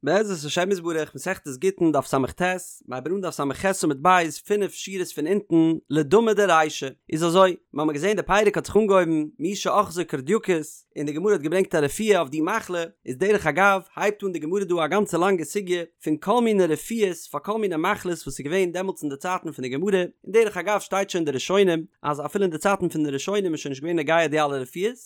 בעזרת השם יתברך, מסכת גיטין דף ס"ט, מ'הייבט אן דף ס"ח עמוד ב', פינף שורות פון אונטן, לדמא דרישא. איז אזוי, מ'האמיר געזען די פרק האט זיך אנגעהויבן מי שאחזו קורדייקוס, און די גמרא האט געברענגט א רפואה אויף די מחלה, איז דרך אגב, הייבט אן די גמרא דא א גאנצע לאנגע סוגיא פון כל מיני רפואות פאר כל מיני מחלות וואס איז געווען דעמאלטס אין די צייטן פון די גמרא, און דרך אגב שטייט שוין אין די ראשונים אז אפילו אין די צייטן פון די ראשונים איז שוין נישט געווען נוגע די אלע רפואות,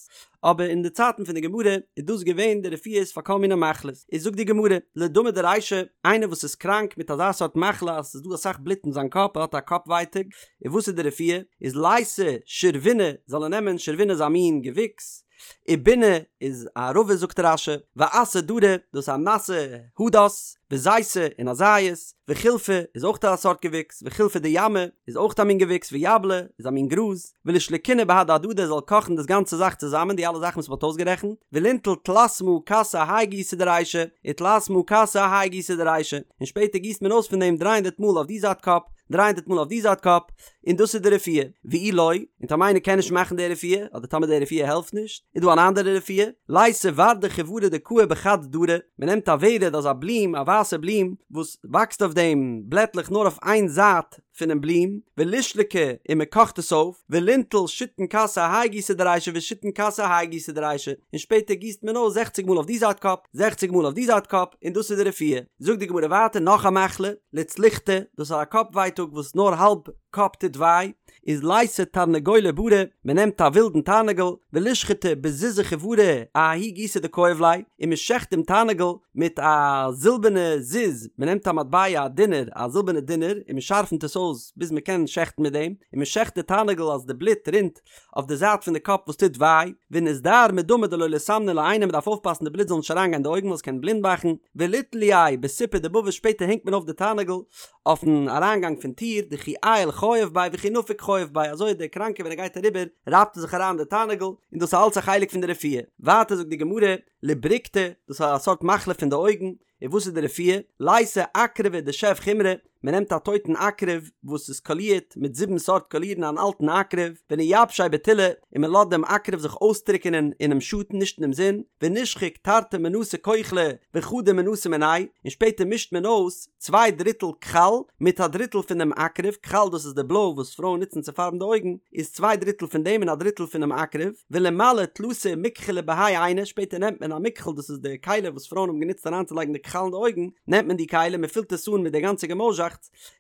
אבער אין די צייטן פון די גמרא איז דאס געווען די רפואות פאר כל מיני מחלות, איז זאגט די גמרא, לדמא דרישא, איינער וואס איז קראנק מיט אזא סארט מחלה אז ס'איז דא אסאך בלוט אין זיין קאפ, ער האט א קאפ ווייטאג, און וואס איז די רפואה? איז לייתי שרבינה, זאל ער נעמען שרבינה איז א מין געוויקס, ובונא איז א ערבה זאגט רש"י, ואסא דרא, דאס איז א נאסע הדס, וזיתא און א זית, וחילפא איז אויך א סארט געוויקס, וחילפא דימא איז אויך א מין געוויקס, ויבלא איז א מין גראז, ולישלקינהו בהדי הדדי זאל קאכן דאס גאנצע זאך צוזאמען די אלע זאכן וואס מ'האט אויסגערעכנט, ולינטול תלת מאה כסי אהאי גיסא דרישא, ותלת מאה כסי אהאי גיסא דרישא, און שפעטער גיסט מען אויס פון דעם דריי הונדערט מאל אויף די זייט קאפ, דריי הונדערט מאל אויף די זייט קאפ, און דאס איז די רפואה. ואי לא, און טאמער איינער קען נישט מאכן די רפואה, אדער טאמער די רפואה העלפט נישט, איז דא אן אנדערע רפואה, לייתי ורדא חיורא דקאי בחד דרא, מען נעמט א ורד אזא בלום, א ווייסע בלום, וואס וואקסט אויף דעם בלעטלעך נאר אויף איין זייט פונעם בלום, ולישלקה, און מען קאכט עס אויף, ולינטול שיתין כסי אהאי גיסא דרישא ושיתין כסי אהאי גיסא דרישא, און שפעטער גיסט מען אויס זעכציג מאל אויף די זייט קאפ, זעכציג מאל אויף די זייט קאפ, און דאס איז די רפואה. זאגט די גמרא ווייטער נאך א מחלה, לצלוחתא, דאס איז א קאפ ווייטאג וואס נאר האלב קאפ טוט וויי, איז לייתי תרנגולא ברא, מען נעמט א ווילדן תרנגול, ולישחטיה בזוזא חיורא אההוא גיסא דכאיב ליה, און מען שעכט דעם תרנגול מיט א זילבערנע זוז, מען נעמט א מטבע א דינר, א זילבערנע דינר, און מען שארפנט עס אויס ביז מען קען שעכטן מיט דעם, און מען שעכט די תרנגול אז די בלוט רינט אויף די זייט פון די קאפ וואס טוט וויי, וניזדהר מדמא דלא ליסמניה לעינא מען דארף אויפפאסן די בלוט זאל נישט אריינגיין אין די אויגן ווייל עס קען בלינד מאכן, וליתלייה בסיפא דבבא שפעטער הענגט מען אויף די תרנגול אויפן אריינגאנג פון טיר, דכי עייל חייב ביה וכי נפיק חייב ביה אזוי דער קראנקער ווען ער גייט אריבער רייבט ער זיך אריין די תרנגול, און דאס איז אלץ א חלק פון די רפואה. ווייטער זאגט די גמרא, לברוקתא, דאס איז א סארט מחלה פון די אויגן, און וואס איז די רפואה? לייתי עקרבא דשב חומרי, מען נעמט א טויטן עקרב וואס איז קאלירט מיט זיבן סארט קאלירן אן אלטן עקרב, ונייבשיה בטולא, און מען לאזט דעם עקרב זיך אויסטריקענען אינעם שאטן נישט אינעם זון, ונישחוק תרתי מנתא כוחלא וחדא מנתא מיניה, און שפעטער מישט מען אויס צוויי דריטל כחל מיט א דריטל פון דעם עקרב, כחל דאס איז די בלוי וואס פרויען נוצן צו פארבן די אויגן, איז צוויי דריטל פון דעם און א דריטל פונעם עקרב, ולימלי תלתא מכחלי בהאי עינא, שפעטער נעמט מען א מכחל דאס איז די כלי וואס פרויען האבן גענוצט אריינצולייגן די כחל אין די אויגן, נעמט מען די כלי מען פילט עס אן מיט די גאנצע געמויזשאכטס,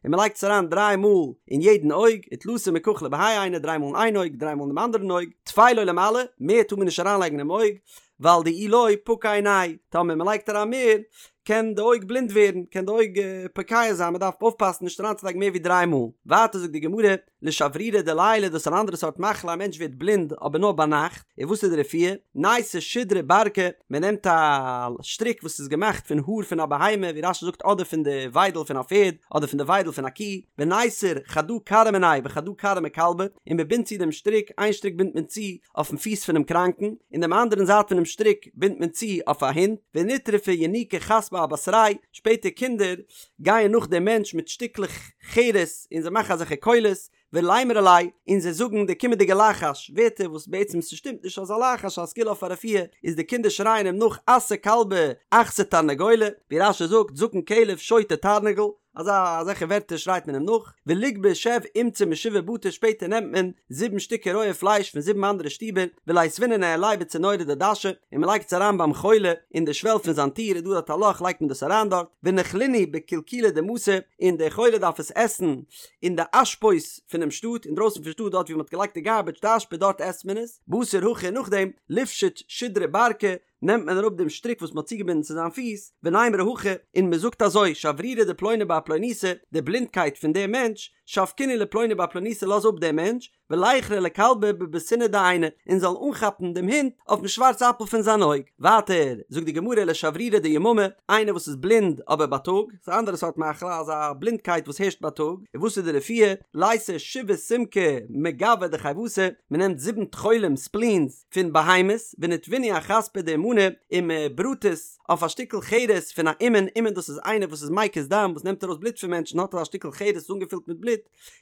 און מען לייגט עס אריין דריי מאל אין יעדן אויג, ותלתא מכחלי בהאי עינא, דריי מאל אין איין אויג, דריי מאל אין דעם אנדערן אויג, טפי לא לימלי, מער טאר מען נישט אריינלייגן אינעם אויג, ווייל דאי לא פקע עיניה, טאמער מען לייגט אריין מער, קען די אויג בלינד ווערן, קען די אויג פוקע זיין, מען דארף אויפפאסן נישט אריינצולייגן מער ווי דריי מאל. ווייטער זאגט די גמרא, לשברירא דליליא דאס איז אן אנדערע סארט מחלה א מענטש ווערט בלינד אבער נאר ביינאכט, און וואס איז די רפואה? נייתי שודרא ברקא, מען נעמט א שטריק וואס איז געמאכט פון האר פון א בהמה ווי רש"י זאגט אדער פון די וויידל פון א פערד אדער פון די וויידל פון א קי, וניתר חדא כרעא מיניה וחדא כרעא מכלבא, און מען בינדט צו דעם שטריק, איין שטריק בינדט מען צו אויפן פיס פונעם קראנקן, און דעם אנדערן זייט פונעם שטריק בינדט מען צו אויף א הונט, ונטרפו ינוקי חספא אבתריה, שפעטער קינדער גייען נאך דעם מענטש מיט שטיקלעך חרס און זיי מאכן אזעלכע קולות, ולימרו ליה, און זיי זאגן די קומענדיגע לחש, ווערטער וואס בעצם ס'שטימט נישט אזא לחש א סגולה אויף א רפואה, איז די קינדער שרייען אים נאך אסא כלבא אכסי תרנגולא, ווי רש"י זאגט זקן כלב שוטה תרנגול, אזא אזעלכע ווערטער שרייט מען אים נאך, וליגבי שב אומצא משבעה בתי שפעטער נעמט מען זיבן שטיקער רויע פלייש פון זיבן אנדערע שטיבער, וליתבינהו ניהליה בצינורא דדשא, און מען לייגט עס אריין ביים חולה אין די שוועל פון זיין טיר איז דא דארט א לאך לייגט מען דאס אריין דארט, ונכלינהו בקילקולא דמתא, און דער חולה דארף עס עסן אין די אשפות פונעם שטאט, אינדרויסן פון שטאט דארט ווי מען האט געלייגט די גארבעדזש די אשפה דארט עסט מען עס, בתר הכי נאכדעם, ליפשוט שודרא ברקא, נעמט מען אראפ דעם שטריק וואס מען האט צוגעבינדן צו זיין פיס, ונימרו הכי, און מען זאגט אזוי, שברירא דפלוני בר פלוניתא, די בלינדקייט פון דעם מענטש, שבקינהו לפלוני בר פלוניתא לאז אפ דעם מענטש, וליכרעיה לכלבא בבסינא דעיניה, און זאל אנכאפן דעם הונט אויפן שווארץ אפל פון זיין אויג. ווייטער זאגט די גמרא לשברירא דיממא, איינער וואס איז בלינד אבער בייטאג, ס'איז א אנדערע סארט מחלה, אזא בלינדקייט וואס הערשט בייטאג, און וואס איז די רפואה, לייתי שבעה סומקי מגואי דחיותא, מען נעמט זיבן טחולים, ספלינס, פון בהמות, ונטוינהו אחספא דאומנא, און מען בראט עס אויף א שטיקל חרס פון א אומן, אומן דאס איז איינער וואס איז מקיז דם, וואס נעמט ארויס בלוט פון מענטשן, האט ער א שטיקל חרס אנגעפילט מיט בלוט,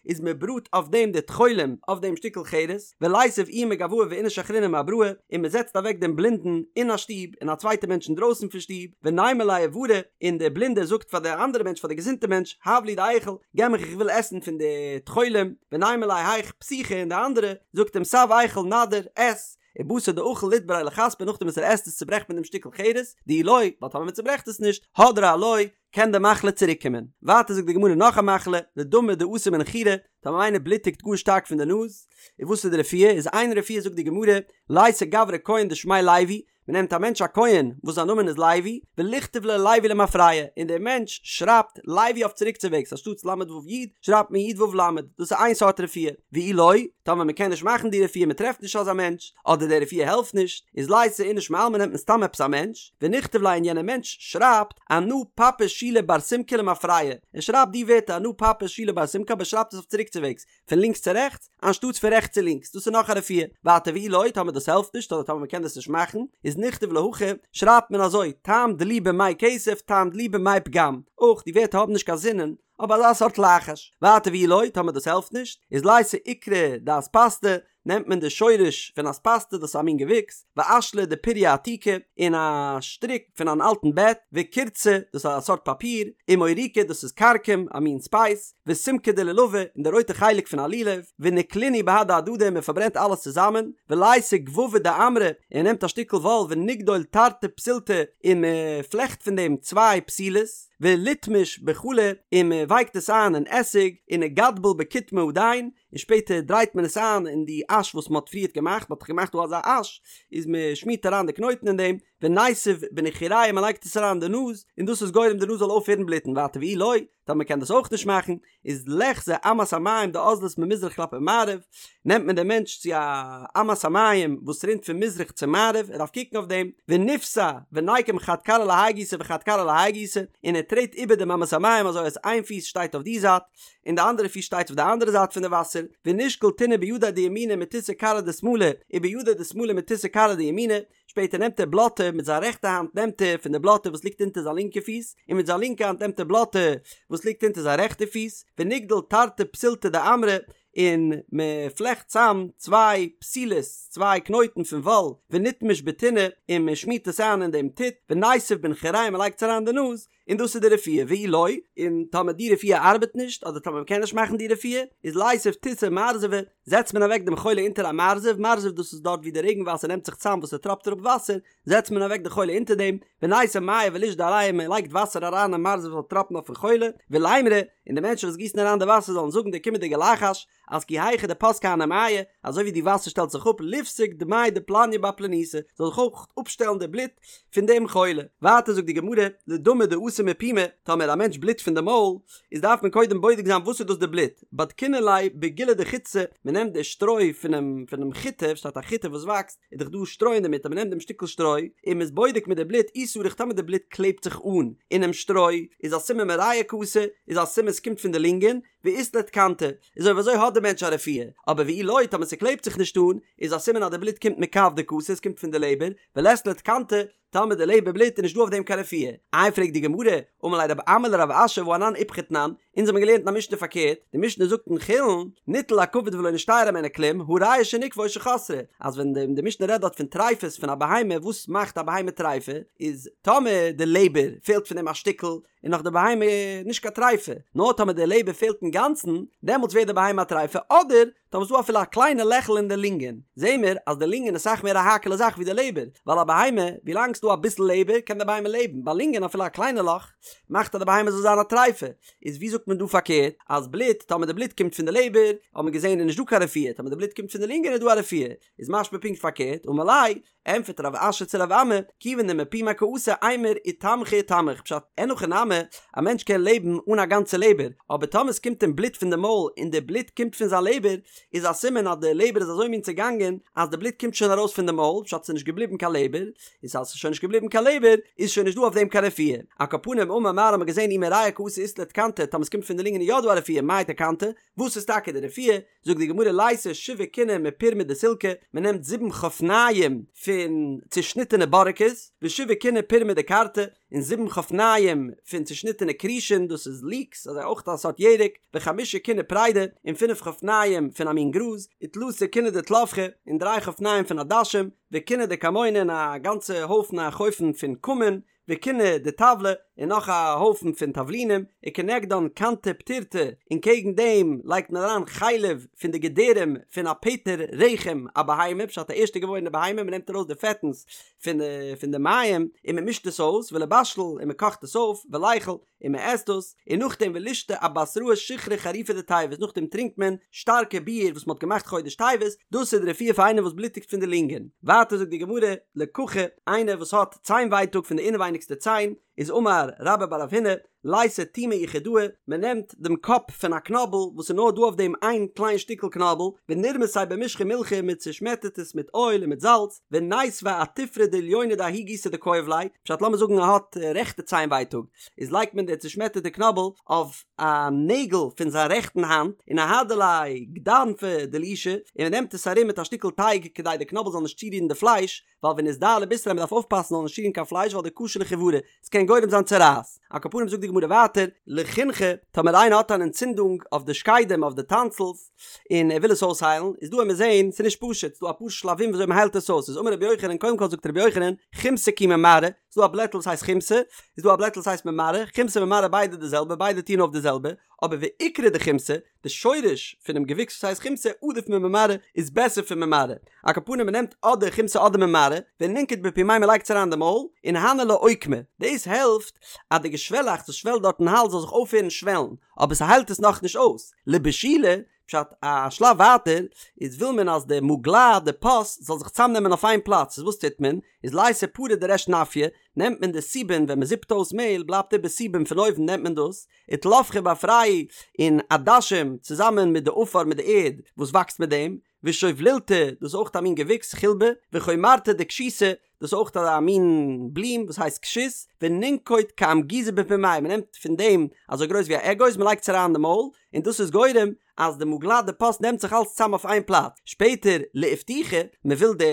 איז מען בראט אויף דעם די טחולים אויף אויף דעם שטיקל חרס, וליתיב איהו מגואי ואיניש אחרינא מאבראי, און מען זעצט אוועק דעם בלינדן אין א שטוב, און א צווייטע מענטש אינדרויסן פון שטוב, ונימא ליה איברא, און דער בלינדער זאגט פאר דער אנדערע מענטש פאר דער געזונטע מענטש, הב לי דאיכול, געב מיך איך וויל עסן פון די טחולים, ונימא ליה היך פתיחא און דער אנדערע זאגט אים סב איכול נאדיר, עס, ובתר דאכיל ליתבריה לחספא נאכדעם וואס ער עסט עס צוברעכט מען דעם שטיקל חרס, דאי לא, ווייל טאמער מען צוברעכט עס נישט, הדרא עילויה, קען די מחלה צוריק קומען. ווייטער זאגט די גמרא נאך א מחלה, לדמא דאתי מנחירא, טאמער איינער בלוטיגט גאר שטארק פון די נאז, איז וואס איז די רפואה, איז איין רפואה זאגט די גמרא, לייתי גברא כהן דשמיה לוי, מען נעמט א מענטש א כהן וואס זיין נאמען איז לוי, וליכתוב ליה לוי למפרע, און דער מענטש שרייבט לוי אויף צוריקצווועגס אנשטאטס ל' ו' י' שרייבט מען י' ו' ל', דאס איז איין סארט רפואה, ואי לא, טאמער מען קען נישט מאכן די רפואה מען טרעפט נישט אזא מענטש, אדער די רפואה העלפט נישט, איז לייתי איניש מעלמא נעמט מען סתם עפעס א מענטש, ונכתוב ליה און יענער מענטש שרייבט אנא פפא שילא בר סומקא למפרע, ער שרייבט די ווערטער אנא פפא שילא בר סומקא אבער ער שרייבט עס אויף צוריקצווועגס, פון לינקס צו רעכטס, אנשטאטס פון רעכטס צו לינקס, דאס איז נאך א רפואה. ווייטער ואי לא, טאמער דאס העלפט נישט, אדער טאמער מ'קען דאס נישט מאכן, איז נכתוב ליה הכי, שרייבט מען אזוי, טעם דלי במי כסף, טעם דלי במי פגם. אויך, די ווערטער האבן נישט קיין זינען, אבער אזא סארט לחש. ווייטער ואי לא, טאמער דאס העלפט נישט, איז לייתי עיקרא דאספסתא, נעמט מען די שורש פון אספסתא, דאס איז א מין געוויקס, ואשלא דפוריא עתיקא, און א שטריק פון אן אלטן בעט, וקורצא, דאס איז א סארט פאפיר, ומוריקא, דאס איז כרכום, א מין ספייס, וסומקא דלולבא, און די רויטע חלק פון א לולב, ונקלינהו בהדי הדדי און מען פארברענט אלעס צוזאמען, ולייתי גבבא דעמרא, און מען נעמט א שטיקל וואל ונגדול תרתי פתילתא, און מען פלעכט פון דעם צוויי פתילות, וליטמש בחלא, און מען ווייקט עס איין אין עסיג, ונגדבל בקוטמא הדין, און שפעטער דרייט מען עס איין אין די אש וואס מען האט פריערט געמאכט, מען האט דאך געמאכט דא אזא אש, איז מען שמירט אריין די קנויטן אין דעם, וניתיב בנחיריה מען לייגט עס אריין אין די נאז, און דאס איז גורם די נאז זאל אויפהערן בלוטן, ווייטער ואי לא, טאמער מען קען דאס אויך נישט מאכן, איז ליחזי אמת המים דאזלת ממזרח כלפי מערב, נעמט מען דעם מענטש צו א אמת המים וואס רינט פון מזרח צו מערב, ער דארף קוקן אויף דעם, וניפסע וניקום חד כרעא להאי גיסא וחד כרעא להאי גיסא, און ער טרעט איבער דעם אמת המים אזוי אז איין פיס שטייט אויף די זייט, און די אנדערע פיס שטייט אויף די אנדערע זייט פון די וואסער, ונשקול טינא בידיה דימינא מתותי כרעא דשמאלא, ובידיה דשמאלא מתותי כרעא דימינא, שפעטער נעמט ער בלאטע, מיט זיין רעכטע האנט נעמט ער פון די בלאטע וואס ליגט אונטער זיין לינקע פיס, און מיט זיין לינקע האנט נעמט ער בלאטע וואס ליגט אונטער זיין רעכטע פיס, ונגדול תרתי פתילתא דעמרא, און מען פלעכט צאם צוויי פתילות, צוויי קנויטן פון וואל, ונטמש בטינא, און מען שמירט עס איין אין דעם טיט, וניתיב בנחיריה מען לייגט עס אריין אין די נאז, און דאס איז די רפואה, ואי לא, און טאמער די רפואה ארבעט נישט, אדער טאמער מ'קען נישט מאכן די רפואה, איז ליתיב תותי מרזבא, זעצט מען אוועק דעם חולה אונטער א מרזב, מרזב דאס איז דארט ווי די רעגן וואסער נעמט זיך צאם וואס ס'טראפט אראפ וואסער, זעצט מען אוועק די חולה אונטער דעם, ונייתי מיא ולישדי עליה מען לייגט וואסער אריין אין מרזב זאל טראפן אויפן חולה, ולימרו, און די מענטשן וואס גיסן אריין די וואסער זאלן זאגן די קומענדיגע לחש, אז כי היכי דפסקי הני מיא, אזוי ווי די וואסער שטעלט זיך אפ ליפסק דמיה דפלניא בר פלניתא, זאל זיך אויך אפשטעלן די בלוט פון דעם חולה. ווייטער זאגט די גמרא, לדמא דאתי מפומיה, טאמער א מענטש בלוט פון די מויל, איז דארף מען קודם בודק זיין וואס איז דאס די בלוט, בדקינן ליה בגילי דחיטתא, מען נעמט די שטרוי פונעם פונעם חיטה, שטייט א חיטה וואס וואקסט, איז דאך דא שטרוי אינדערמיט, אז מען נעמט דעם שטיקל שטרוי, און מען איז בודק מיט די בלוט, אי סריך טאמער די בלוט קלעבט זיך אן אינעם שטרוי, איז א סימן מריאה קאתי, איז א סימן ס'קומט פון די לונגען, ואית ליה תקנתא, איז אויב אזוי האט די מענטש א רפואה, אבער ואי לא טאמער ס'קלעבט זיך נישט אן, איז א סימן אז די בלוט קומט מכבדא קאתי, עס קומט פון די לעבער, ולית ליה תקנתא, טאמער די לעבער בלוט איז נישט דא אויף דעם קיין רפואה. איי פרעגט די גמרא, אמר ליה רב אמי לרב אשי והא אנן איפכא תנן, אונז האבן געלערנט אין א משנה פארקערט, די משנה זאגט אין חולין, ניטל הכבד ולא נשתייר הימנו כלום, הראיה שניקבה או שחסרה, אז ווען די משנה רעדט דארט פון טריפות פון א בהמה, וואס מאכט א בהמה טריפה, איז טאמער די לעבער פעלט פון דעם א שטיקל, איז נאך די בהמה נישט קיין טריפה, נאר טאמער די לעבער פעלט אינגאנצן, דעמאלטס ווערט די בהמה א טריפה, אדער טאמער ס'איז דא אפילו א קליינע לעכל אין די לונגען, זעהן מיר אז די לונגען איז אסאך מער א האקעלע זאך ווי די לעבער, ווייל א בהמה, ווילאנג ס'דא אביסל לעבער קען די בהמה לעבן, ביי לונגען אפילו א קליינע לאך מאכט אז די בהמה זאל זיין א טריפה, איז ווי זאגט מען דא פארקערט, אז בלוט, טאמער די בלוט קומט פון די לעבער, האט מען געזעהן איז נישט דא קיין רפואה, טאמער די בלוט קומט פון די לונגען איז דא א רפואה, איז משמע פונקט פארקערט, אמר ליה, ענטפערט רב אשי צו רב אמי, כיוון דמפומיה קאתי אימור איתמחי איתמח, פשט, אין הכי נמי, א מענטש קען לעבן אן א גאנצע לעבער, אבער טאמער עס קומט אים בלוט פון די מויל און די בלוט קומט פון זיין לעבער, איז א סימן אז די לעבער איז אזוי מין צעגאנגען אז די בלוט קומט שוין ארויס פון די מויל, פשט ס'איז נישט געבליבן קיין לעבער, איז אז ס'איז שוין נישט געבליבן קיין לעבער, איז שוין נישט דא אויף דעם קיין רפואה. על כל פנים אמר מר האט מען געזען אי מריאה קאתי אית ליה תקנתא, טאמער עס קומט פון די לונגען איז יא דא א רפואה, מאי תקנתא? וואס איז טאקע די רפואה? זאגט די גמרא לייתי שבעה קיני מפורמא דסילקא, מען נעמט זיבן חפניים פון צושניטענע בארעקעס, ושבעה קיני פורמא דכרתי, און זיבן חפניים פון צושניטענע כרישין, דאס איז ליקס, אזוי אויך א סארט ירק, וחמשה קיני פרידי, און פינף חפניים פון א מין גראז, ותלתא קיני דתלפחי, און דריי חפניים פון עדשים, וקיני דכמונא און א גאנצע הויפן א חופן פון כמון, וקיני דטבלי, און נאך א הויפן פון תבלינים, וכנגדן כנתא פטירתא, און קעגן דעם לייגט מען אריין חלב פון די געדערים פון א פטר רחם א בהמה, פשט א ערשטע געבוירענע בהמה, מען נעמט ארויס די פעטנס פון די פון די מעיים און מען מישט עס אויס, ולבשל, און מען קאכט עס אויף, וליכול, און מען עסט דאס, און נאכדעם ולישתי אבתראי שיכרא חריפא דטבת, נאכדעם טרינקט מען שטארקע ביר וואס מען האט געמאכט חודש טבת, דאס איז די רפואה פאר איינער וואס בלוטיגט פון די לונגען. ווייטער זאגט די גמרא, לככה, איינער וואס האט ציין ווייטאג פון די אינעווייניגסטע ציין, איז אמר רבה בר רב הונא, לייתי תומא יחידאה, מען נעמט דעם קאפ פון א קנאבל וואס איז נאר דא אויף דעם איין קליין שטיקל קנאבל, ונרמסיה במשחא ומילחא, מען צושמעטערט עס מיט אויל און מיט זאלץ, וניתביה אתופרא דעליונא דההוא גיסא דכאיב ליה, פשט לאמיר זאגן ער האט רעכטע ציין ווייטאג, איז לייגט מען די צושמעטערטע קנאבל אויף א נעגל פון זיין רעכטן האנט, ונהדר ליה גדנפא דלישא, און מען נעמט עס ארום מיט א שטיקל טייג כדי די קנאבל זאל נישט צורירן די פלייש, ווייל ונזדהר לבישריה מען דארף אויפפאסן זאל נישט צורירן קיין פלייש ווייל דקשי לחיורא, עס קען גורם זיין צרעת. על כל פנים זאגט די גמרא ווייטער, לחינכי, טאמער איינער האט אן אנטצינדונג אויף די שקדים אויף די טאנסילס, און ער וויל עס אויסהיילן, איז דא וועמיר זעהן, ס'איז נישט פשוט, ס'איז דא אפאר שלבים וויאזוי מ'היילט עס אויס, איז אמר רבי יוחנן, קודם כל זאגט רבי יוחנן, חומתא כי ממרעא, ס'איז דא א בלעטל וואס הייסט חומתא, איז דא א בלעטל וואס הייסט ממרעא, חומתא ממרעא ביידע די זעלבע, ביידע טוען אויף די זעלבע, אבער ועיקרא דחומתא, די שורש פונעם געוויקס וואס הייסט חומתא עדיף ממרעא איז בעסער פון ממרעא, על כל פנים מ'נעמט אדער חומתא אדער ממרעא, ונינקוט בפומיה מ'לייגט עס אריין אין די מויל, און הני לאוקמא, דאס העלפט אז די געשוועלאכץ וואס שוועלט דארט אין האלז זאל זיך אויפהערן שוועלן, אבער ס'היילט עס נאכנישט אויס. לבישולי, פשט א שלב ווייטער, איז וויל מען אז די מוגלה, די פוס, זאל זיך צאמנעמען אויף איין פלאץ, איז וואס טוט מען? איז לייתי פרא דריש נפיא, נעמט מען די סובין, ווען מ'זיפט אויס מעהל בלייבט איבער סובין פון אויבן נעמט מען דאס, ותלפחא באפרייהו, און עדשים צוזאמען מיט די עפר מיט די ערד וואס וואקסט מיט דעם, ושובלילתא, דאס איז אויך א מין געוויקס, חילבא, וחומרתא דכשותא, דאס איז אויך א מין בלום וואס הייסט כשות, ונינקוט כאמגוזא בפומיה, מען נעמט פון דעם אזוי גרויס ווי א אגוז, מען לייגט עס אריין אין די מויל, און דאס איז גורם אז די מוגלה די פוס נעמט זיך אלץ צאם אויף איין פלאץ, שפעטער לאיפתוחי, מען וויל די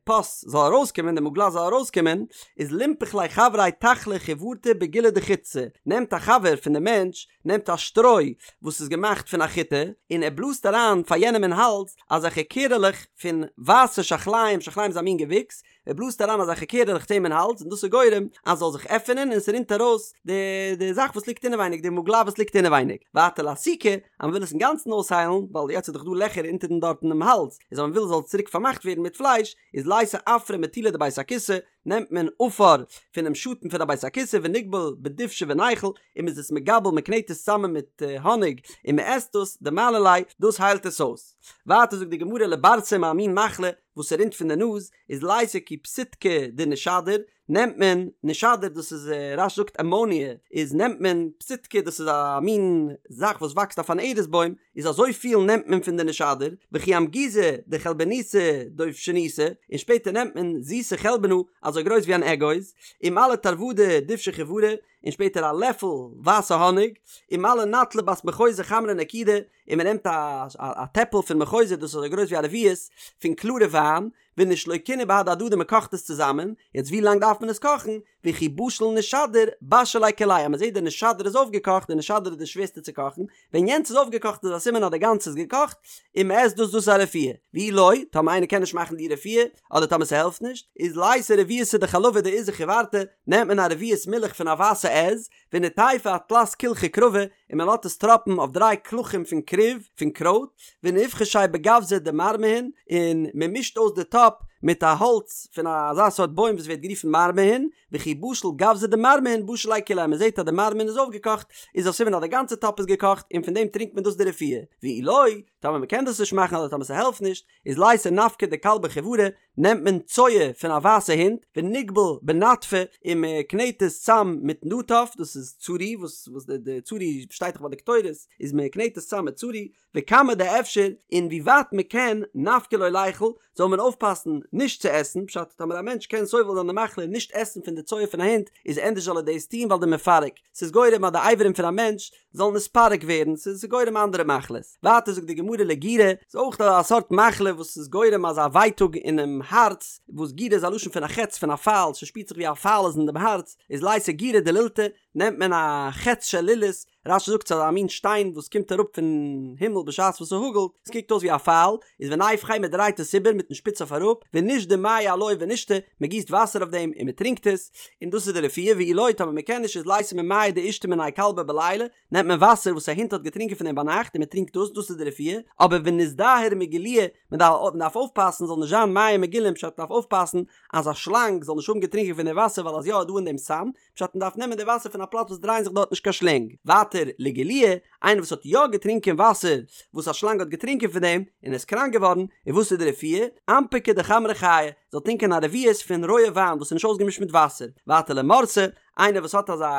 פוס זאל ארויסקומען, די מוגלה זאל ארויסקומען, איז לינפח ליה חבריה תחלא חיורתא בגילא דחיטתא, נעמט א חבר פון די מענטש, נעמט א שטרוי וואס איז געמאכט פון א חיטה, און ער בלאזט אריין פאר יענעם אין האלז אזעלכע קערעלעך פון ווייסע שחליים, שחליים איז א מין געוויקס, ער בלאזט אריין אזעלכע קערעלעך צו אים אין האלז און דאס איז גורם אז ס'זאל זיך עפענען און ס'רינט ארויס די די זאך וואס ליגט אינעווייניג, די מוגלה וואס ליגט אינעווייניג. ווייטער לאסוקי, אז מ'וויל עס אינגאנצן אויסהיילן, ווייל יעצט איז דאך דא לעכער אונטערן דארט אינעם האלז, איז אז מ'וויל ס'זאל צוריק פארמאכט ווערן מיט פלייש, איז לייתי עפרא מטולא דבית הכסא, נעמט מען עפר פונעם שאטן פון א בית הכסא ונגבל בדובשא וניכול, און מ'איז עס מגבל מ'קנעט עס צוזאמען מיט האניג און מ'עסט דאס, דמעלי ליה, דאס היילט עס אויס. ווייטער זאגט די גמרא לברסם א מין מחלה וואס ס'רינט פון די נאז, איז לייתי כי פסיטקא דנישדור, נעמט מען נישדור דאס איז רש"י זאגט אמאניע, איז נעמט מען פסיטקא דאס איז א מין זאך וואס וואקסט אויף אן ארז בוים, איז אזוי פיל נעמט מען פון די נישדור, וכי אמגוזא דחלבניתא דובשניתא, און שפעטער נעמט מען זיסע חלבנה אזוי גרויס ווי אן אגוז, ומלי תרוודא דובשא חיורא, און שפעטער א לעפל ווייסע האניג, ומלי נטלא בת מחוזא חמרא נקידא, און מען נעמט א א טעפל פון מחוזא דאס איז אזוי גרויס ווי א רביעית פון קלארע וויין, ונשלוקינהו בהדי הדדי מען קאכט עס צוזאמען, יעצט ווי לאנג דארף מען עס קאכן, וכי בשיל נישדור בשיל ליה כוליה, אז מען זעט די נישדור איז אויפגעקאכט, די נישדור איז די שווערסטע צו קאכן, ווען יענץ איז אויפגעקאכט איז א סימן אז די גאנצע איז געקאכט, און מען עסט דאס דאס איז א רפואה, ואי לא, טאמער איינער קען נישט מאכן די רפואה, אדער טאמער ס'העלפט נישט, איז לייתי רביעתא דחלבא דעיזא חיורתא, נעמט מען א רביעית מילך פון א ווייסע עז, וניטייפיה אתלת קילחי כרבא, און מען לאזט עס טראפן אויף דריי קלחים פון כרוב, פון קרויט, ונבחשיה בגווזא דמרמהין, און מען מישט אויס די טאפ מיט א האלץ פון אזא סארט בוים וואס ווערט גערופן מרמהין, וכי בשיל גווזא דמרמהין בשיל ליה כוליה, מען זעט אז די מרמהין איז אויפגעקאכט, איז א סימן אז די גאנצע טאפ איז געקאכט, און פון דעם טרינקט מען דאס די רפואה, ואי לא, טאמער מען קען דאס נישט מאכן אדער טאמער ס'העלפט נישט, איז לייתי נפקא דכלבא חיורא, נעמט מען צואה פון א ווייסע הונט, ונגבל בנטפא, און מען קנעט עס צאם מיט נטף, דאס איז צורי, וואס וואס די די צורי שטייט דאך ביי די קטורת, איז מען קנעט עס צאם מיט צורי, וכמה דאפשר, און ווי ווייט מען קען, נפקא לא ליכול, זאל מען אויפפאסן נישט צו עסן, פשט טאמער א מענטש קען סובל זיין די מחלה און נישט עסן פון די צואה פון א הונט איז ענדערש זאל ער דאס טון ווייל דמפרק, ס'איז גורם אז די אברים פון א מענטש זאלן נתפרק ווערן, ס'איז גורם אנדערע מחלות. ווייטער זאגט די גמרא לגירא, ס'איז אויך א סארט מחלה וואס איז גורם אזא ווייטאג אינעם הארץ, וואס גירא איז א לשון פון א חץ פון א פייל, ס'שפירט זיך ווי א פייל איז אין דעם הארץ, איז לייתי גירא דלולתא, נעמט מען א חץ של לולית, רש"י זאגט ס'איז א מין שטיין וואס קומט אראפ פון הימל בשעת וואס ס'האגלט, עס קוקט אויס ווי א פייל, איז וניפכיה מ'דרייט עס איבער מיטן שפיץ אויף אראפ, ונשדי מיא עילויה ונשתי, מ'גיסט וואסער אויף דעם און מ'טרינקט עס, און דאס איז די רפואה, ואי לא טאמער מ'קען נישט איז לייתי ממיא דאישתי מיניה כלבא בליליא, נעמט מען וואסער וואס א הונט האט געטרינקען פון דעם ביינאכט און מ'טרינקט דאס, דאס איז די רפואה, אבער וניזדהר מגילויא, מ'דארף אויפפאסן ס'זאל נישט זיין מים מגולים פשט מ'דארף אויפפאסן אז א שלאנג זאל נישט האבן געטרינקען פון די וואסער ווייל אז יא איז דא אין דעם סם, פשט מען דארף נעמען די וואסער פון א פלאץ וואס דרייען זיך דארט נישט קיין שלענג. ווייטער לגילויא, איינער וואס האט יא געטרינקען וואסער וואס א שלאנג האט געטרינקען פון דעם און איז קראנק געווארן, איז וואס איז די רפואה? אנפקא דחמרא חייא, זאל טרינקען א רביעית פון רויע וויין וואס איז נישט אויסגעמישט מיט וואסער. ווייטער למורסא, איינער וואס האט אזא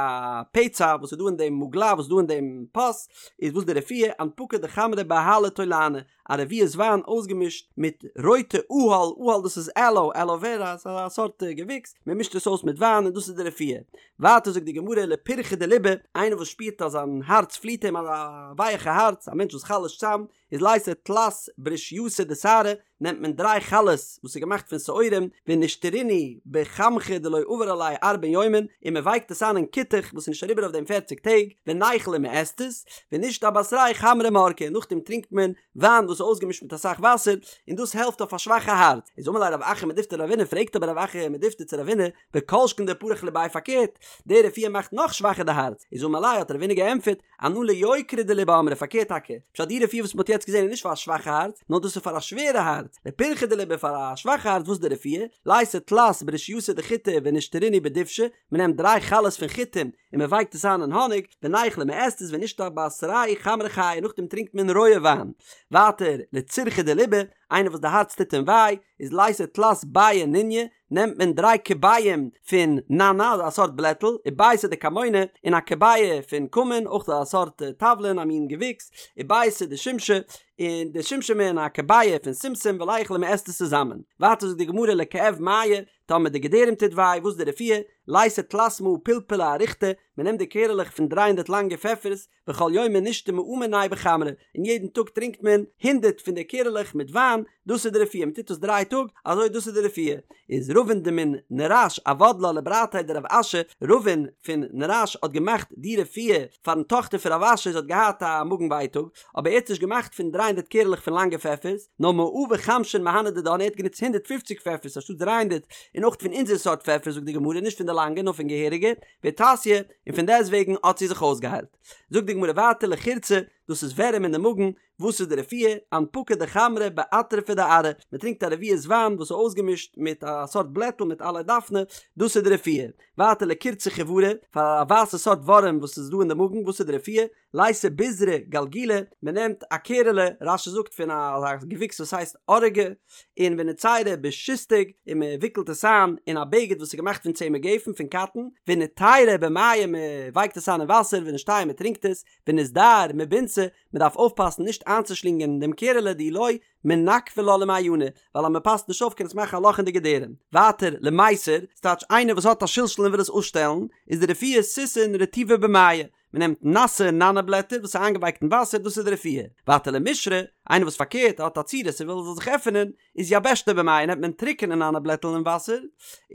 פצע וואס איז דא אין דעם מוגלה וואס איז דא אין דעם פוס, איז וואס די רפואה? אנפקא דחמרא באהלא תולענא, א רביעית וויין אויסגעמישט מיט רויטע אהל, אהל דאס איז עלאו, עלאו ווערא, ס'איז א סארט געוויקס, מען מישט עס אויס מיט וויין און דאס איז די רפואה. ווייטער זאגט די גמרא לפירחא דליבא, איינער וואס שפירט אז זיין הארץ פליט אים, אזא ווייעכע הארץ, א מענטש וואס חלש'ט צאם, איז לייתי תלת ברישייתא דשערי, נעמט מען דריי חלות וואס איז געמאכט פון שעורים, ונשתרינהו בכמכא דלא עבר עליה ארבעין יומין, און מען ווייקט עס איין אין כותח וואס איז נישט אריבער אויף דעם פערציג טעג, וניכול און מען עסט עס, ונשתי אבתריה חמרא מרקא, און נאכדעם טרינקט מען וויין וואס איז אויסגעמישט מיט אסאך וואסער, און דאס העלפט אויף א שוואכע הארץ. איז אמר ליה רב אחא מדיפתי לרבינא, פרעגט אבער רב אחא מדיפתי צו רבינא, וכל שכן דפריך לביה פארקערט, די רפואה מאכט נאך שוואכער די הארץ, איז אמר ליה האט רבינא געענטפערט, אנא ליוקרא דליבא אמרי פארקערט טאקע, פשט די רפואה וואס מען האט יעצט געזען איז נישט פאר א שוואכע הארץ, נאר דאס איז פאר א שווערע הארץ, לפירחא דליבא פאר א שוואכע הארץ וואס איז די רפואה? לייתי תלת ברישייתא דחיטי ונשתרינהו בדובשא, מען נעמט דריי חלות פון חיטים און מען ווייקט עס איין אין האניג, וניכול מען עסט עס ונשתי אבתריה חמרא חייא נאכדעם טרינקט מען רויע וויין. ווייטער, לצירחא דליבא, איינער וואס די הארץ טוט אים וויי, איז לייתי תלת ביעי ניניא, נעמט מען דריי כביעים פון ננא, א סארט בלעטל, וביעתא דכמונא, און א כביעה פון כמון, אויך א סארט תבלין, א מין געוויקס, וביעתא דשומשמי, און די שומשמין און א כביעה פון שומשום וליכול און מען עסט עס צוזאמען. ווייטער זאגט די גמרא לכאב מעיא, טאמער די געדערים טוט וויי, וואס איז די רפואה? לייתי תלת מאה פלפלי אריכתא, מען נעמט די קערעלעך פון דריי הונדערט לאנגע פעפערס, וכל יומא נשתי מאה מינייהו בחמרא, און יעדן טאג טרינקט מען הונדערט פון די קערעלעך מיט וויין, דאס איז די רפואה, מען טוט עס דריי טאג, אזוי דאס איז די רפואה. איז רבין דמן נרש עבד לה לברתיה דרב אשי, רבין פון נרש האט געמאכט די רפואה פארן טאכטער פון רב אשי, זי האט געהאט א מאגן ווייטאג, אבער ער האט נישט געמאכט פון דריי הונדערט קערעלעך פון לאנגע פעפערס, נאר מאה וחמשין מהני דידן, ער האט גענוצט הונדערט פופציג פעפערס אנשטאט דריי הונדערט, און אויך פון אונזער סארט פעפערס זאגט די גמרא, נישט פון די לאנגע נאר פון געהעריגע, ואיתסיא, און פון דעסט וועגן האט זי זיך אויסגעהיילט. זאגט די גמרא ווייטער לחירצא, דאס איז ווערים אין די מאגן, וואס איז די רפואה? אנפקא דחמרא באטרפא דארעא, מען טרינקט א רביעית וויין וואס איז אויסגעמישט מיט א סארט בלעטל מיט עלי דפנה, דאס איז די רפואה. ווייטער לקורצא חיורא, פאר א ווייסע סארט ווארעם וואס איז דא אין די מאגן, וואס איז די רפואה? לייתי ביזרא גלגולא, מען נעמט א קערעלע, רש"י זאגט פון א געוויקס וואס הייסט ארגא, און ונציריה בשיסטאג, און מען וויקלט עס איין אין א בגד וואס איז געמאכט פון צמר גפן, פון קאטן, וניתיריה במיא, מען ווייקט עס איין אין וואסער, ונשתייה מען טרינקט עס, וניזדהר מבינתא, מען דארף אויפפאסן נישט איינצושלינגען דעם קערעלע דאי לא, מנקבא לה למעיינא, ווייל אז מען פאסט נישט אויף קען עס מאכן א לאך אין די געדערים. ווייטער, למיסר, ס'טייטש איינער וואס האט א שלשול און וויל עס אפשטעלן, איז די רפואה סיסין רטיבי במיא, מען נעמט נאסע נאנא בלעטער וואס איז איינגעווייקט אין וואסער דאס איז די רפואה. ווייטער למישרא, איינער וואס פארקערט האט א צורת און וויל עס זאל זיך עפענען, איז יבשתיה במיא נעמט מען טרוקענע נאנא בלעטל אין וואסער,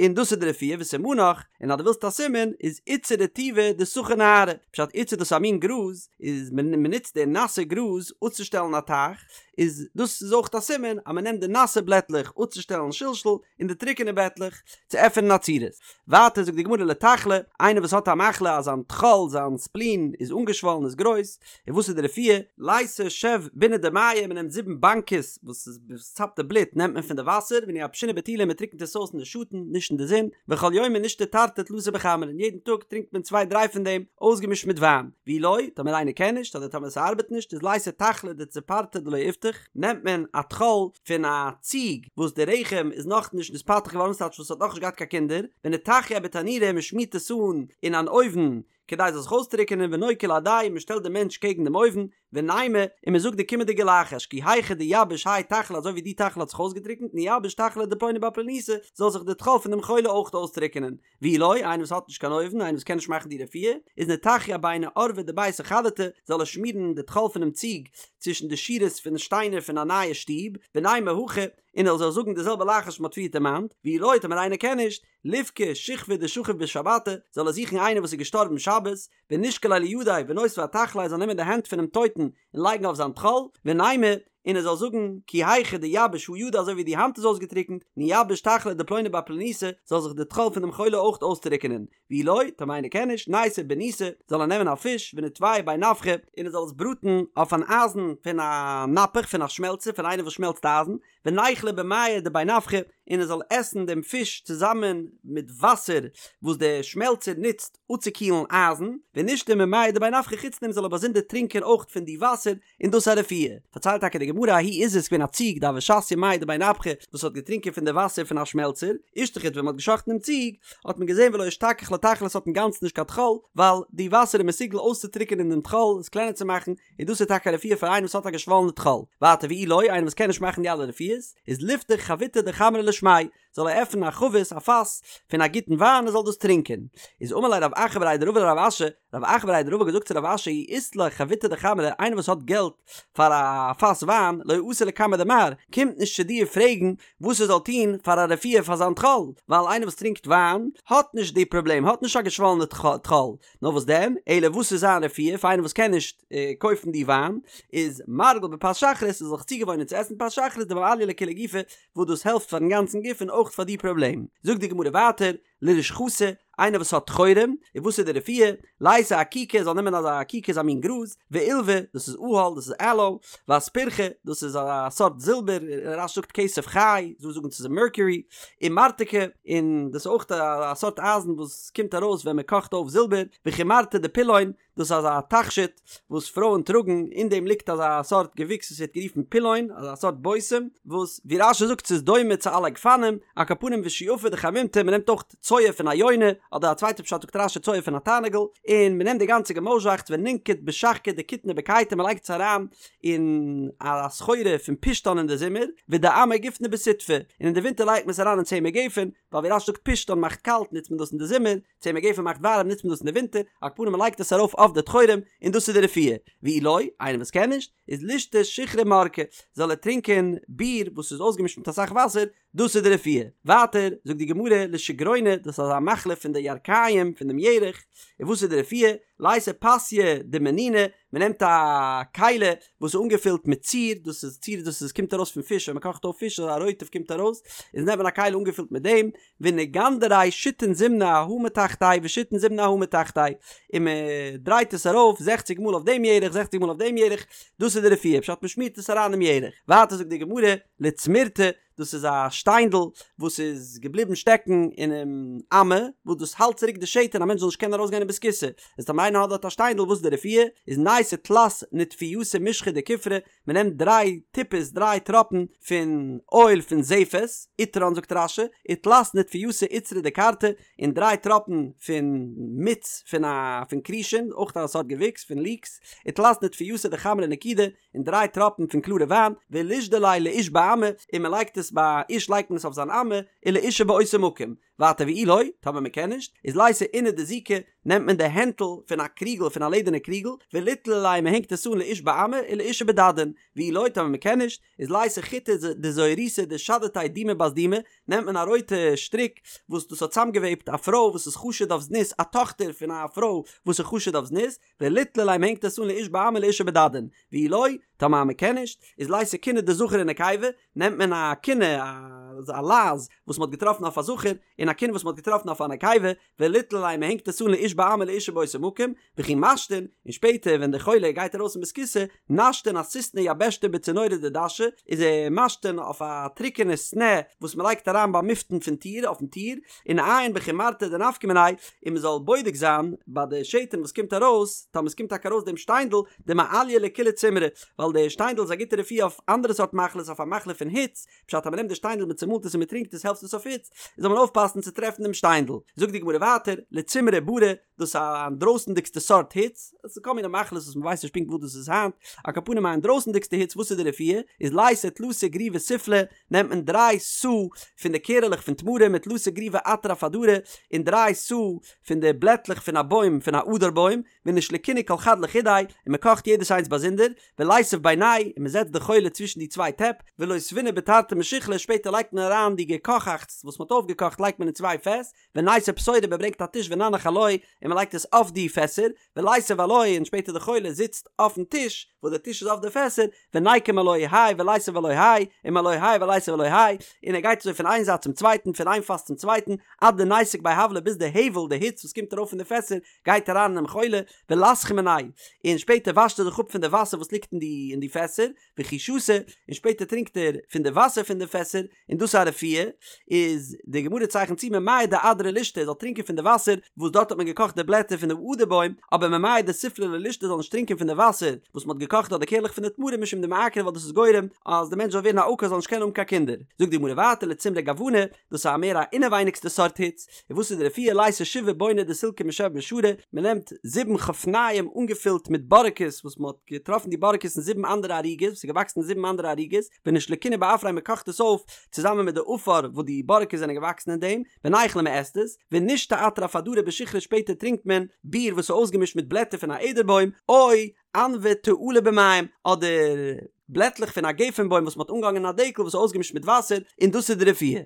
און דאס איז די רפואה וסימנך, און אז דו ווילסט א סימן, איז עיצא רטיבא דסחי נהרא, פשט עיצא דאס איז א מין גראז, איז מען נוצט די נאסע גראז אפצושטעלן א טייך, איז דאס איז אויך א סימן אז מען נעמט די נאסע בלעטלעך אפצושטעלן שלשול, און די טרוקענע בעטלעך צו עפענען א צורת. ווייטער זאגט די גמרא לטחלא, איינער וואס האט א מחלה אז זיין טחול, זיין ספלין, איז אנגעשוואלן, איז גרויס, און וואס איז די רפואה? לייתי שב ביני דמיא, מען נעמט זיבן באנקעס וואס איז וואס צאפט די בלוט נעמט מען פון די וואסער, ונייבשינהו בטולא מען טריקנט עס אויס אין די שאטן, נישט אין די זון, וכל יומא נשתי תרתי תלתא בחמרא, און יעדן טאג טרינקט מען צוויי דריי פון דעם, אויסגעמישט מיט וויין. ואי לא, טאמער איינער קען נישט, אדער טאמער ס'ארבעט נישט, איז לייתי טחלא דצפרתא דלא איפתח, נעמט מען א טחול פון א ציג וואס די רחם איז נאכנישט נתפתח געווארן ס'טייטש וואס האט נאכנישט געהאט קיין קינדער, וניטחייה בתנורא מען שמירט עס אן אין אן אויוון. כדי עס זאל זיך אויסטרוקענען ונוקי להדיה, מען שטעלט דעם מענטש קעגן דעם אויוון, ונימא, און מען זאגט די קומענדיגע לחש, כי היכי דיביש האי תחלא אזוי ווי די תחלא האט זיך אויסגעטרוקנט נייבש תחלא דפלוני בר פלוניתא, זאל זיך די טחול פון דעם חולה אויך אויסטרוקענען. ואי לא, איינער וואס האט נישט קיין אויוון, איינער וואס קען נישט מאכן די רפואה, איז ניטחיה ביני אורבי דביתא חדתא, זאל ער שמירן די טחול פונעם ציג צווישן די שורות פון שטיינער פון א נייע שטוב, ונימא הכי, און ער זאל זאגן די זעלבע לחש וואס מען האט פריער דערמאנט, ואי לא, טאמער איינער קען נישט, ליבקי שכבא דשכיב בשבתא, זאל ער זוכן איינער וואס איז געשטארבן שבת, ונישקליה לידיה ונותביה אתחליה ער זאל נעמען די הענט פונעם טויטן און לייגן אויף זיין טחול, ונימא, און ער זאל זאגן, כי היכי דיביש הא ידא אזוי ווי די האנט איז אויסגעטריקנט, נייבש תחלא דפלוני בר פלוניתא, זאל זיך די טחול פון דעם חולה אויך אויסטריקענען, ואי לא, טאמער איינער קען נישט, ניתי בניתא, זאל ער נעמען א פיש, וניטוייהו בי נפחא, און ער זאל עס בראטן אויף אן אייזן פון א נפח, פון א שמעלצער, פון איינער וואס שמעלצט אייזן, וניכליה במיא דבי נפחא, און ער זאל עסן דעם פיש צוזאמען מיט וואסער וואס דער שמעלצער נוצט אפצוקילן אייזן, ונישתי ממיא דבי נפחא חוץ דעם זאל ער באזונדער טרינקען אויך פון די וואסער, און דאס איז א רפואה. פארציילט טאקע די גמרא ההיא עיזא איז געווען א ציג דהוה שתיא מיא דבי נפחא וואס האט געטרינקען פון די וואסער פון א שמעלצער, אישתחיט ווען מען האט געשאכטן דעם ציג האט מען געזען ולא אשתכח לה תחלא עס האט אינגאנצן נישט קיין טחול, ווייל די וואסער איז מסוגל אויסצוטריקענען דעם טחול, עס קלענער צו מאכן, און דאס איז טאקע א רפואה פאר איינעם וואס האט א געשוואלענע טחול. ווייטער ואי לא, איינער וואס קען נישט מאכן די אלע רפואות, איז ליפתח חביתא דחמרא לשמיה, זאל ער עפענען א חבית, א פאס, פון א גוטן וויין און זאל דאס טרינקען. איז אמר ליה רב אחא בריה דרבא לרב אשי, רב אחא בריה דרבא האט געזאגט צו רב אשי אי אית ליה חביתא דחמרא, איינער וואס האט געלט פאר א פאס וויין, לא אתי לקמיה דמר, קומט נישט צו דיר פרעגן וואס ער זאל טון פאר א רפואה פאר זיין טחול, ווייל איינער וואס טרינקט וויין האט נישט די פראבלעם, האט נישט א געשוואלענע טחול, נאר וואס דען, אלא וואס איז זיין רפואה פאר איינער וואס קען נישט קויפן די וויין, איז מרגיל בפת שחרית, ער זאל זיך צוגעוואוינען צו עסן פת שחרית דמעליא לכוליה גופא, וואס דאס העלפט פארן גאנצן גוף און אויך פאר די פראבלעם. זאגט די גמרא ווייטער, לרושחתא, איינער וואס האט טחורים, און וואס איז די רפואה, לייתי אקיקא, זאל נעמען אזא אקיקא איז א מין גראז, ועולבא, דאס איז אהל, דאס איז עלאו, ואספרכא, דאס איז א סארט זילבער, רש"י זאגט כסף חי, דא זאגן ס'איז מערקיורי, ומרתכא, און דאס איז אויך א סארט אייזן וואס קומט ארויס ווען מען קאכט אויף זילבער, וחומרתא דפילון, דאס איז אזא תכשיט וואס פרויען טראגן, אין דעם ליגט אזא סארט געוויקס וואס ווערט גערופן פילון, אזא סארט בושם, וואס ווי רש"י זאגט ס'איז דומה צו עלי גפנים, על כל פנים ושועפא דחמימתא, מען נעמט אויך צואה פון א יונה, אדער א צווייטע פשט זאגט רש"י צואה פון א תרנגול, און מען נעמט די גאנצע געמויזשאכץ ונינקוט בשחקא דכיתנא בקיטא מען לייגט עס אריין אין א סחורה פון פשתן אין די זומער, ודעמר גופנא בסיטבא, און אין די ווינטער לייגט מען עס אריין אין צמר גפן, ווייל ווי רש"י זאגט פשתן מאכט קאלט נוצט מען דאס אין די זומער, צמר גפן מאכט ווארעם נוצט מען דאס אין די ווינטער, על כל פנים מען לייגט עס ארויף אויף די טחורים, און דאס איז די רפואה, ואי לא, איינער וואס קען נישט, איז לישתי שיכרא מרקא, זאל ער טרינקען ביר וואס איז אויסגעמישט מיט אסאך וואסער, דאס איז די רפואה. ווייטער זאגט די גמרא לשגרונא, דאס איז אזא מחלה פון די ירכיים, פון דעם ירך, און וואס איז די רפואה? לייתי פסיא דמנונא, מען נעמט א כלי וואס איז אנגעפילט מיט ציר, דאס איז ציר דאס איז קומט ארויס פון פיש ווען מען קאכט אויף פיש אזא רוטב קומט ארויס, איז נעמט מען א כלי אנגעפילט מיט דעם, וניגנדריה שיתין זימני אהא מתחתיה ושיתין זימני אהא מתחתיה, און מען דרייט עס ארויף זעכציג מאל אויף דעם ירך זעכציג מאל אויף דעם ירך, דאס איז די רפואה, פשט מען שמירט עס אריין דעם ירך. ווייטער זאגט די גמרא, לצמירתא, דאס איז א שטיינדל וואס איז געבליבן שטעקן אינעם אמה, וואס דאס האלט צוריק די שתן א מענטש זאל נישט קענען ארויסגיין אין בית הכסא, איז טאמער איינער האט דארט א שטיינדל וואס איז די רפואה? איז נייתי תלת נטפייתא משחא דכופרא, מען נעמט דריי טיפות דריי טראפן פון אויל פון זפת, עיטרן זאגט רש"י, ותלת נטפייתא עיטרא דקרתא, און דריי טראפן פון מיץ פון א פון כרישין, אויך א סארט געוויקס פון ליקס, ותלת נטפייתא דחמרא נקידא, און דריי טראפן פון קלארע וויין, ולישדי ליה לאיש באמה, און מען לייגט עס ביי א איש לייגט מען עס אויף זיין אמה, ולאשה באותו מקום. ווייטער ואי לא, טאמער מען קען נישט, איז לייתי אונא דזיקא, נעמט מען די הענטל פון א קריגל פון א לעדערנע קריגל, וליתלי ליה מען הענגט עס אן לאיש באמה ולאשה בדדין, ואי לא, טאמער מען קען נישט, איז לייתי חוטא דזוהריתא דשדתיה דומא בת דומא, נעמט מען א רויטע שטריק וואס דאס האט צוזאמגעוועבט א פרוי וואס איז חשוד אויף זנות, א טאכטער פון א פרוי וואס איז חשוד אויף זנות, וליתלי ליה מ'הענגט עס אן לאיש באמה ולאשה בדדין, ואי לא, טאמער מען קען נישט, איז לייתי כינה דזכר ונקבה, נעמט מען א כינה, א לייז, וואס מען האט געטראפן אויף א זכר, און א כינה וואס מען האט געטראפן אויף א נקבה, וליתלי ליה מען הענגט עס אן לאיש באמה ולאשה באותו מקום, וכי משתין, און שפעטער ווען דער חולה גייט ארויס אין בית הכסא, נשתין אסיסנא יבישתא בצינורא דדשא, איז ער משתין אויף א טרוקענע סנע וואס מען לייגט אריין ביים מפתן פון טיר, אויפן טיר, וניעיין בחומרתא דנפקא מיניה, און מען זאל בודק זיין ביי די שתן וואס קומט ארויס, טאמער עס קומט טאקע ארויס דעם שטיינדל, דמעליא לכולהו צימרי, ווייל די שטיינדל איז א גוטע רפואה אויף אנדערע סארט מחלות, אויף א מחלה פון היץ, פשט אז מען נעמט די שטיינדל מען צומאלט עס און מען טרינקט עס העלפט עס אויף היץ, זאל מען אויפפאסן. אויסגעהאלטן צו טרעפן דעם שטיינדל. זאגט די גמרא ווייטער, לצמרא ברא, דאס איז א אינדרויסנדיגסטע סארט היץ, עס איז כל מיני מחלות וואס מען ווייסט נישט פונקט וואס דאס איז היינט, על כל פנים א אינדרויסנדיגסטע היץ וואס איז די רפואה, איז לייתי תלתא גריוי סופלי, נעמט מען דריי סאה פון די קערעלעך פון תמרים ותלתא גריוי אטרף אדרא, און דריי סאה פון די בלעטלעך פון א בוים פון א אדר בוים, ונישלקינהו כל חד לחודיה, און מען קאכט יעדעס איינס באזונדער, וליתיב בינייהו, און מען זעצט די חולה צווישן די צוויי טעפ, ולותבינהו בתרתי משיחלי, שפעטער לייגט מען אריין די געקאכאכטס וואס מען האט אויפגעקאכט לייגט מען אין צוויי פעס, וניתו פתורא מען ברענגט א טיש וננח עילויה, און מען לייגט עס אויף די פעסער, וליתיב עילויה און שפעטער די חולה זיצט אויפן טיש, וואס די טיש איז אויף די פעסער, וניקום עילוי האי וליתיב עילוי האי, ומעילוי האי וליתיב עילוי האי, און ער גייט אזוי פון איין זייט צום צווייטן, פון איין פאס צום צווייטן, עד דניתיק ביה הבלא ביז די הבל, די היץ וואס קומט ארויף פון די פעסער, גייט אריין אינעם חולה, ולסחי מינייהו, און שפעטער וואשט ער זיך אפ פון די וואסער וואס ליגט אין די אין די פעסער, וכי שתי, און שפעטער טרינקט ער פון די וואסער פון די פעסער, און דאס איז א רפואה, איז די גמרא צייכנט צו ממיא דאדרא לישתי ער זאל טרינקען פון די וואסער וואס דארט האט מען געקאכט די בלעטער פון די אדר בוים, אבער ממיא דסופלי לא לישתי זאל נישט טרינקען פון די וואסער וואס מען האט געקאכט דארט די קערלעך פון די תמרים משום דמעקרי ווייל דאס איז גורם אז די מענטש זאל ווערן א עקר זאל נישט קענען האבן קיין קינדער. זאגט די גמרא ווייטער לצמרא גוונא, דאס איז א מער א אינעווייניגסטע סארט היץ, און וואס איז די רפואה לייתי שבעה בוני דסילקא משב משרי, מען נעמט זיבן חפניים אנגעפילט מיט בארעקעס וואס מען האט געטראפן די בארעקעס אין זיבן אנדערע ערוגות וואס איז געוואקסן אין זיבן אנדערע ערוגות, ונישלקינהו בעפרייהו מען קאכט עס אויף צוזאמען מיט די עפר וואס די בארעקעס זענען געוואקסן אין דעם, וניכליה מען עסט עס, ונישתי אטרף אדרא בשיכרא שפעטער טרינקט מען ביר וואס איז אויסגעמישט מיט בלעטער פון א אדר בוים, או ענבי תאלה במים, אדער בלעטלעך פון א גפן בוים וואס מען האט אנגעהאנגען אין א דקל וואס איז אויסגעמישט מיט וואסער, און דאס איז די רפואה.